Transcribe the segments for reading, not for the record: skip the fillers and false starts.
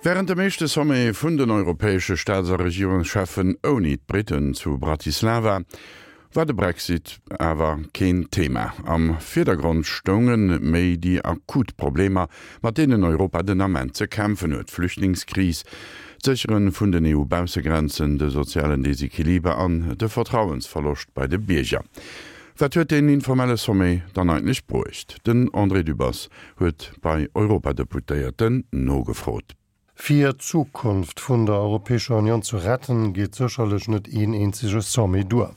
Wärend dem éischte Sommet vun den europäesche Staats a Regierungscheffen ouni d'Briten zu Bratislava war de Brexit awer keen Thema. Am Virdergrond stounge méi déi akut Problemer, mat deenen Europa den Ament ze kämpfen huet, d'Flüchtlingskris, d'Séchere vun den EU-Baussegrenzen, de sozialen Desequiliber an de Vertrauensverloscht bei de Bierger. Wat huet deen informelle Sommet dann eigentlech bruecht? Den André Dübbers huet bei Europadeputéierten nogefrot. Fir d'Zukunft vun der Europäescher Unioun ze retten, geet sécherlech net een eenzege Sommet duer.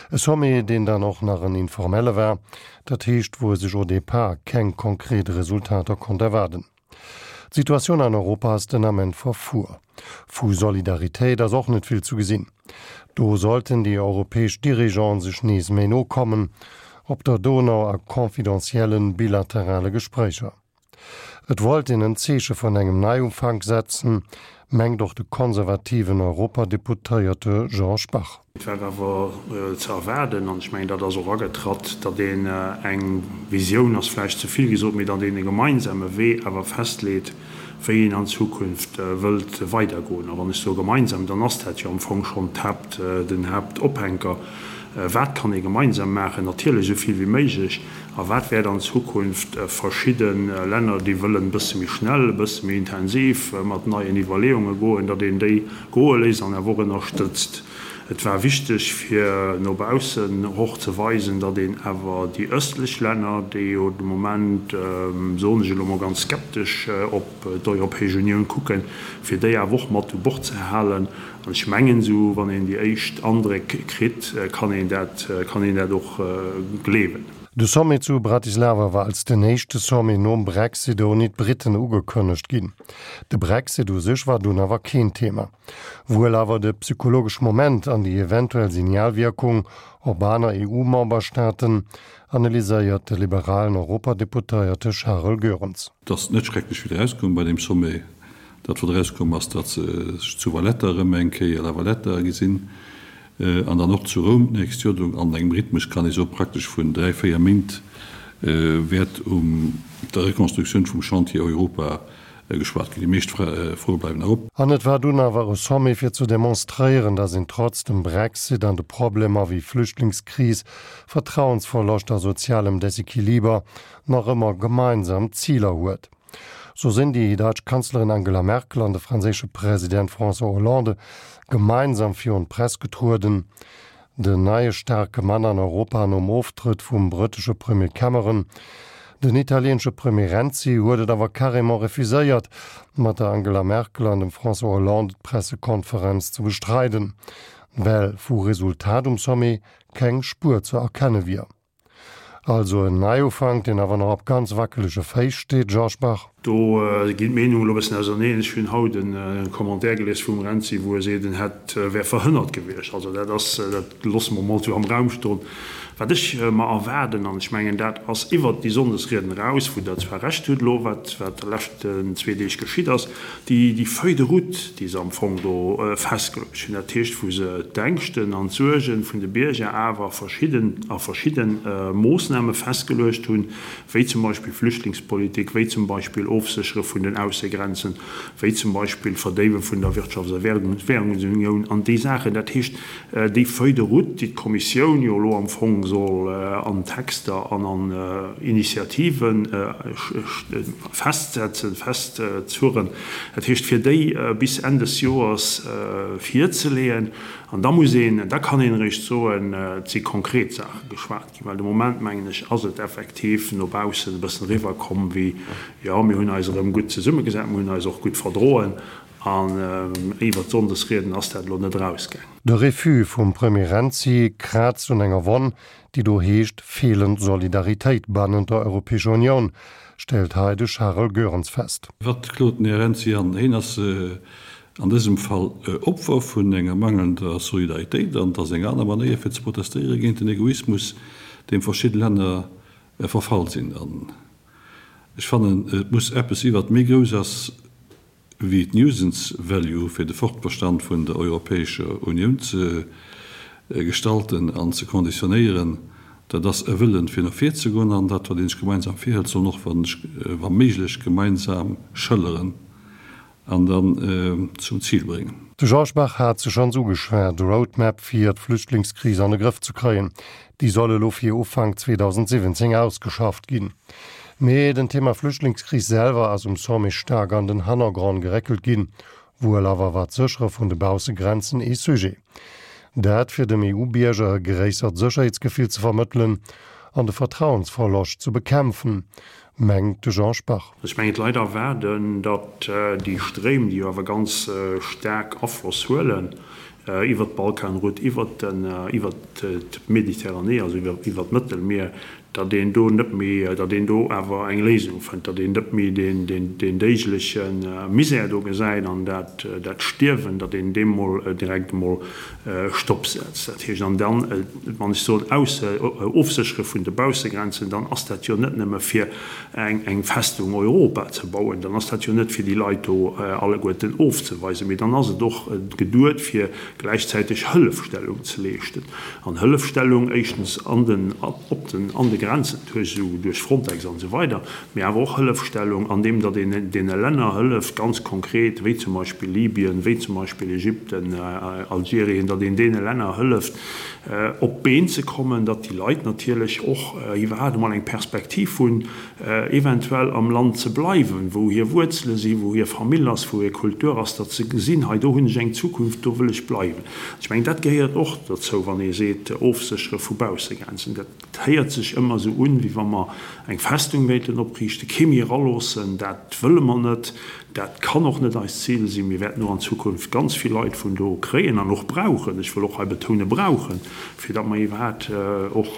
E Sommet, deen dann och nach en informelle war, dat heescht, wou e sech au départ keng konkret Resultater konnt erwaarden. D'Situatioun an Europa ass den Ament verfuer. Vu Solidaritéit ass och net vill zu gesinn. Do sollten déi europäesch Dirigeanten sech nees méi no kommen, op der Donau a confidentiellen bilaterale Gespréicher. Et wollt een en Zeeche vun engem Neiufank setzen, mengt och de konservativen Europadeputéierte Georges Bach. Et war awer ze erwaarden, an ech mengen, dat ass och agetratt, datt een eng Visioun ass vläicht ze vill gesot, mee datt een e gemeinsame Wee awer festleet, wéi een an Zukunft wëllt weidergoen. A wann ech soe gemeinsam, dann ass dat jo am Fong schonn d'Haapt, den Haaptophänker. Wat kann ee gemeinsam maachen? Natierlech esou vill wéi méiglech. A wat wäert an Zukunft verschidde Länner, déi wëllen e bësse méi schnell, e bësse méi intensiv mat neien Iwwerleeunge goen, datt een déi goe léisst an awer och ënnerstëtzt. Et war wichteg, fir no baussen och ze weisen, datt een awer déi ëstlech Länner, déi jo de Moment, soen ech elo mol ganz skeptesch, op d'Europäesch Unioun kucken, fir déi awer och mat u Bord ze halen. An ech mengen, esou wann een déi éischt Andréck kritt, kann een dat, kann een dat och gleewen. De Sommet zu Bratislava war als den éischte Sommet nom Brexit ouni d'Briten ugekënnegt ginn. De Brexit u sech war dunn awer keen Thema. Wuel awer de psychologesch Moment an déi eventuell Signalwierkung op aner EU-Memberstaaten, analyséiert de liberalen Europadeputéierte Charel Goerens. Et ass net schrecklech vill erauskomm bei deem Sommet. Dat wat erauskomm ass, datt se sech zu Valletta erëm eng Kéier, La Valletta, gesinn an dann och zu Roum d'nächst Joer. Do an engem Rhythmus, kann ee soen, praktesch vun 3, 4 Méint wäert um der Rekonstruktioun vum Chantier Europa geschwat ginn. Déi meescht Froe bleiwen nach op. An et war dunn awer e Sommet fir ze demonstréieren, datt een trotz dem Brexit an de Problemer wéi Flüchtlingskris, Vertrauensverloscht a sozialem Desequiliber nach ëmmer gemeinsam Ziler huet. Sou sinn déi däitsch Kanzlerin Angela Merkel an de franséische President François Hollande gemeinsam virun d'Press getrueden. Den neie staarke Mann an Europa nom Oftrëtt vum brëttesche Premier Cameron. Den italieenesche Premier Renzi huet et awer carrément refuséiert, mat der Angela Merkel an dem François Hollande d'Pressekonferenz ze bestreiden, well vu Resultat um Sommet keng Spuer ze erkenne wier. Also en Neiufank, deen awer nach op ganz wackelege Féiss steet, Georges Bach. Do ginn d'Meenungen elo e bëssen auserneen. Ech hunn haut e Commentaire gelies vum Renzi, wou e seet, en hätt, wär verhënnert gewiescht. Also dat ass, dat loosse mer mol esou am Raum stoen. Wat ech mer erwaarden, an ech mengen, dat ass iwwert déi Sonndesrieden eraus, wou Der zwar Recht hutt elo, wat wat de leschten zwee Deeg geschitt ass, Déi, déi Feuille de route, déi se am Fong do festgeluecht hunn, dat heescht, wou se d'Ängschten an d'Suerge vun de Bierger awer verschidden, a verschidde Moossname festgeluecht hunn, wéi zum Beispill Flüchtlingspolitik, wéi zum Beispill Ofséchere vun den Aussegrenzen, wéi zum Beispill Verdéiwe vun der Wirtschafts a Währungsunioun an déi Saachen. Dat heescht, Déi Feuille de route, déi d'Kommissioun jo elo am Fong soll an Texter an an Initiative festsetzen, festzurren, dat heescht fir déi bis Enn des Joers virzeleeën, an da muss een, da kann een eréischt soen, et si konkret Saache geschwat ginn, well de Moment, mengen ech, ass et effektiv no baussen e bëssen eriwwerkomm wéi, jo, mir hunn eis erëm gutt zesummegesat, mir hunn eis och gutt verdroen, An iwwert d'Sonndesrieden ass dat elo net erausgaang. De Refus vum Premier Renzi kraazt un enger Wonn, déi do heescht feelend Solidaritéit bannent der Europäescher Unioun, stellt hei de Charel Goerens fest. Wat klot den Här Renzi an? Heen ass an dësem Fall Opfer vun enger mangelnder Solidaritéit an et ass eng aner Manéier fir ze protestéiere géint den Egoismus, deem verschidde Länner verfall sinn. An ech fannen, et muss eppes si wat méi grouss ass wéi d'Nuisance Value fir de Fortbestand vun der Europäescher Unioun ze gestalten an ze konditionéieren, dat ass e Wëllen fir no vir ze goen an dat wat een sech gemeinsam virhëlt, soll en och wa méiglech gemeinsam schëlleren. An dann zum Zil bréngen. De Georges Bach hat se schonns ugeschwat, de Roadmap fir d'Flüchtlingskris an de Grëff ze kréien, déi soll elo fir Ufank 2017 ausgeschafft ginn. Mee den Thema Flüchtlingskris selwer ass um Sommet staark an den Hannergrond geréckelt ginn. Wuel awer war d'Séchere vun de Baussegrenzen ee Sujet. Dat fir dem EU-Bierger e gréissert Sécherheetsgefill ze vermëttelen an de Vertrauensverloscht ze bekämpfen, mengt de Jean Spach. Ech mengen, d'Leit erwaarden, datt déi Stréim, déi jo awer ganz staark Afloss huelen iwwert d'Balkanroute, iwwert d'Mediterranee, also iwwert d'Mëttelmier, datt een do net méi, datt een do awer eng Léisung fënnt, datt een net méi deen déigleche Misär do gesäit an dat Stierwen, datt een deem mol direkt emol Stopp setzt. Dat heescht, an dann, wann ech soen Ofséchere vun de Baussegrenzen, dann ass dat jo net nëmme fir eng Festung Europa ze bauen, dann ass dat jo net fir déi Leit do alleguerten ofzeweisen, mee dann ass et och geduet fir gläichzäiteg Hëllefstellung ze leeschten. An Hëllefstellung éischtens an den, op den, an de Grenzen duerch esou, duerch Frontex an esou weider, mee awer och Hëllefstellung andeem datt een deene Länner hëlleft, ganz konkret, wéi zum Beispill Libyen, wéi zum Beispill Ägypten, Algerien, datt een deene Länner hëlleft, op d'Been ze kommen, datt déi Leit natierlech och iwwerhaapt emol eng Perspektiv hunn, eventuell am Land ze bleiwen, wou hir Wuerzele sinn, wou hir Famill ass, wou hir Kultur ass, datt se gesinn, hei do hunn ech eng Zukunft, do wëll ech bleiwen. Ech mengen, dat gehéiert och dozou, wann ee seet, Ofséchere vu Baussegrenzen. Dat héiert sech ëmmer esou un, wéi wa mer eng Festung wéilten opriichten, kee méi eraloossen. Dat wëlle mer net. Dat kann och net eist Zil sinn. Mir wäerten och an Zukunft ganz vill Leit vun do kréien an och brauchen, ech wëll och hei betounen, brauchen, fir datt mer iwwerhaapt och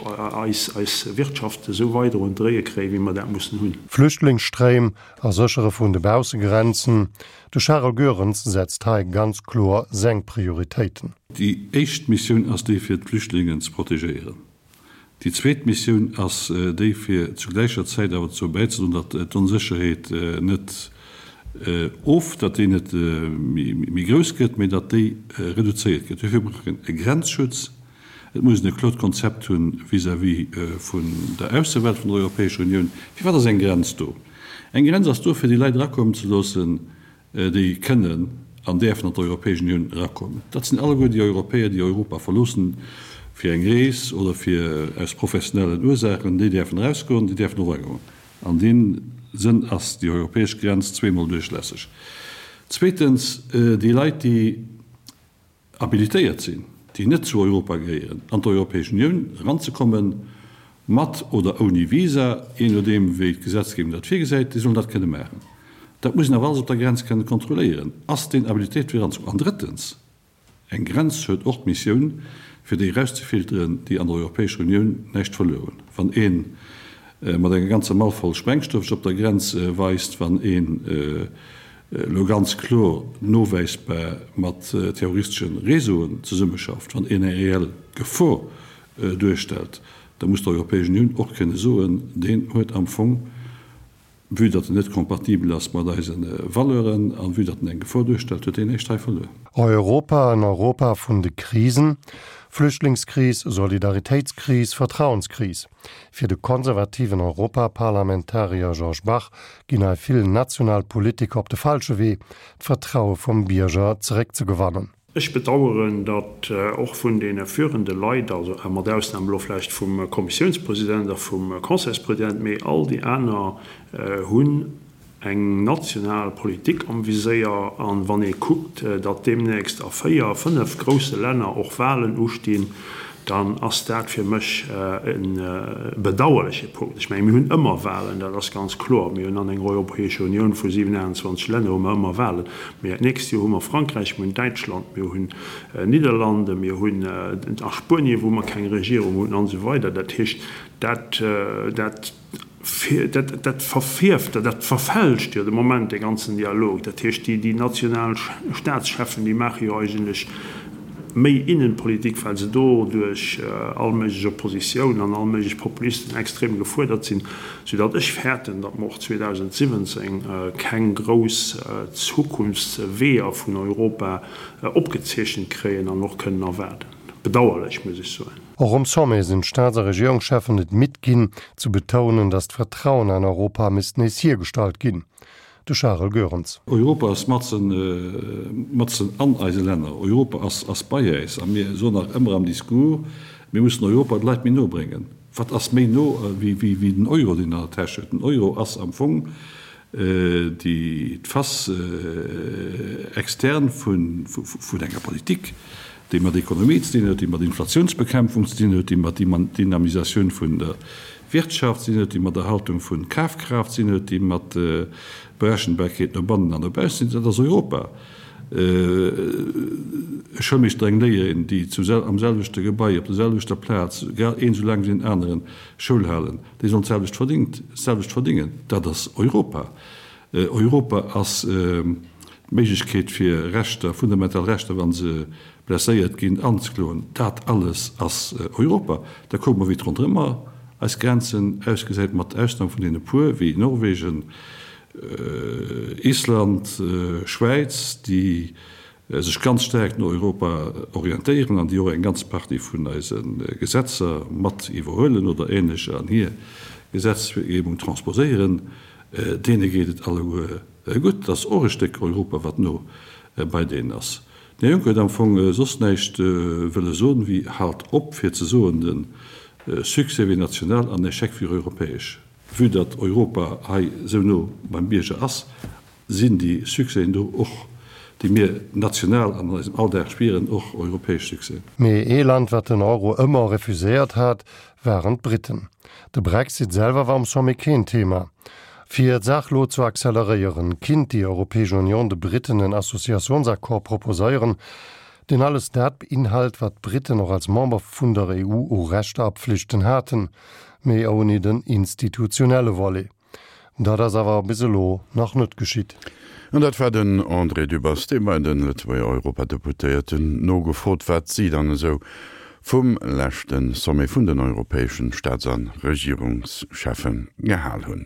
eis Wirtschaft esou weider un d'Dréie kréien, wéi mer dat mussen hunn. Flüchtlingsstréim a Séchere vun de Baussegrenzen, De Charel Goerens setzt hei ganz kloer seng Prioritéiten. Déi éischt Missioun ass déi fir d'Flüchtlingen ze protegéieren. Déi zweet Missioun ass déi fir zu gläicher Zäit awer dozou bäizedroen, datt d'Onsécherheet net of, datt déi net méi grouss gëtt, mee datt déi reduzéiert gëtt. Duerfir brauch een e Grenzschutz. Et muss een e kloert Konzept hunn vis-à-vis vun der Aussewelt vun der Europäescher Unioun. Firwat ass eng Grenz do? Eng Grenz ass do, fir déi Leit erakommen ze loossen, déi kënnen an däerfen an d'Europäesch Unioun erakommen. Dat sinn alleguer déi Europäer, déi Europa verloossen fir eng Rees oder fir aus professionellen Ursaachen. Déi däerfen erausgoen, déi däerfen och eragoen. An deem Sënn ass déi europäesch Grenz zweemol duerchlässeg. Zweetens, déi Leit, déi habilitéiert sinn, déi net zu Europa gehéieren, an d'Europäesch Unioun eranzekommen, mat oder ouni Visa, jee nodeem wéi d'Gesetzgebung dat virgesäit, déi sollen dat kënne maachen. Dat muss een awer alles op der Grenz kënne kontrolléieren, Ass deen habilitéiert fir eranzekommen? An drëttens, eng Grenz huet och d'Missioun, fir déi erauszefilteren, déi an der Europäescher Unioun näischt verluer hunn. Wann ee mat enger ganzer Mall voll Sprengstoff sech op der Grenz weist, wann een elo ganz kloer nowäisbar mat terroristesche Réseauen zesummeschafft, wann een eng reell Gefor duerstellt, da muss d'Europäesch Unioun och kënne soen, deen huet am Fong, vue datt en net kompatibel ass mat eise Valeuren a vue datt en eng Gefor duerstellt, huet deen näischt hei verluer. Europa, en Europa vun de Krisen, Flüchtlingskris, Solidaritéitskris, Vertrauenskris. Fir de konservativen Europaparlamentarier Georges Bach ginn hei vill national Politiker op de falsche Wee, d'Vertraue vum Bierger zeréckzegewannen. Ech bedaueren, datt och vun deene führende Leit, also mat Ausnam elo vläicht vum Kommissiounspresident a vum Conseilspresident, mee all déi aner hunn eng national Politik am Viséier. An wann ee kuckt, datt deemnächst a véier, fënnef grousse Länner och Wahlen ustinn, dann ass dat fir mech e bedauerleche Punkt. Ech mengen, mir hunn ëmmer Wahlen, dat ass ganz kloer. Mir hunn an enger Europäescher Unioun vu 27 Länner hu mer ëmmer Wahlen. Mä d'nächst Joer hu mer Frankräich, mir hunn Däitschland, mir hunn Nidderlande, mir hunn a Spuenien, wou mer keng Regierung hunn, an esou weider. Dat heescht, dat, dat. Dat verfierft, dat verfälscht jo de Moment dee ganzen Dialog. Dat heescht, déi national Staatscheffen, déi maache jo eigentlech méi Innenpolitik, well se do duerch all méiglech Oppositioun an all méiglech Populisten extrem gefuerdert sinn, soudatt ech fäerten, datt mer och 2017 keng grouss Zukunftsweeër vun Europa opgezeechent kréien an och kënnen erwaarden. Bedauerlech, muss ech soen. Och um Sommet sinn d'Staats a Regierungscheffen et midd ginn, ze betounen, datt d'Vertrauen an Europa misst nees hiergestallt ginn. De Charel Goerens. Europa ass matzen, matzen an eise Länner. Europa ass, ass bei äis. A mir soen nach ëmmer am Discours, mir mussen Europa de Leit méi no bréngen. Wat ass méi no wéi, wéi, wéi den Euro, deen an der Täsch huet? Den Euro ass am Fong déi, d'Face externe vun, vun enger Politik, déi mat Ekonomie ze dinn huet, déi mat Inflationsbekämpfung ze dinn huet, déi mat Dynamisatioun vun der Wirtschaft ze dinn huet, déi mat Erhaltung vun Kafkraaft ze dinn huet, déi mat Berechenbarkeet no bannen an no baussen ze dinn huet. Dat ass Europa. E Schoulmeeschter, eng Léierin, déi zu am selwechte Gebai, op der selwechter Plaz, grad een esou laang wéi deen aneren Schoul halen, déi sollen d'selwecht verdingt, d'selwecht verdingen. Dat ass Europa. Europa ass d'Méiglechkeet fir Rechter, fundamental Rechter, wa se blesséiert ginn, anzekloen. Dat alles ass Europa. Da kucke mer, wéi et ronderëm eis Grenzen ausgesäit, mat Ausnam vun deene puer wéi Norwegen, Island, Schwäiz, déi sech ganz staark no Europa orientéieren an déi och eng ganz Partie vun eise Gesetzer mat iwwerhuelen oder ähnlecher an hir Gesetzgebung transposéieren, deene geet et alleguer gutt. Dat ass och e Stéck Europa, wat no bei deenen ass. Den Här Juncker huet am Fong soss näischt wëlle soen, wéi Haalt op fir ze soen, de Succès wier national an Echec wier europäesch. Vue datt Europa hei esou no beim Bierger ass, sinn déi Succèsen do och, déi mir national an eisem Alldag spieren, och europäesch Succèsen. Mee ee Land, wat den Euro ëmmer refuséiert hat, waren d'Britten. De Brexit selwer war um Sommet keen Thema. Fir d'Saach lo ze acceleréieren, kinnt déi Europäesch Union de Britten en Associationsaccord proposéieren, deen alles dat beinhalt, wat d'Britten och als Member vun der EU u Rechter a Pflichten haten, mee ouni den institutionelle Volet. Dat ass awer bis elo nach net geschitt. An dat war den André Dübbers, dee bei de Lëtzebuerger Europadeputéierten nogefrot, wat si dann esou vum leschte Sommet vun den europäeschen Staats a Regierungscheffe gehal hunn.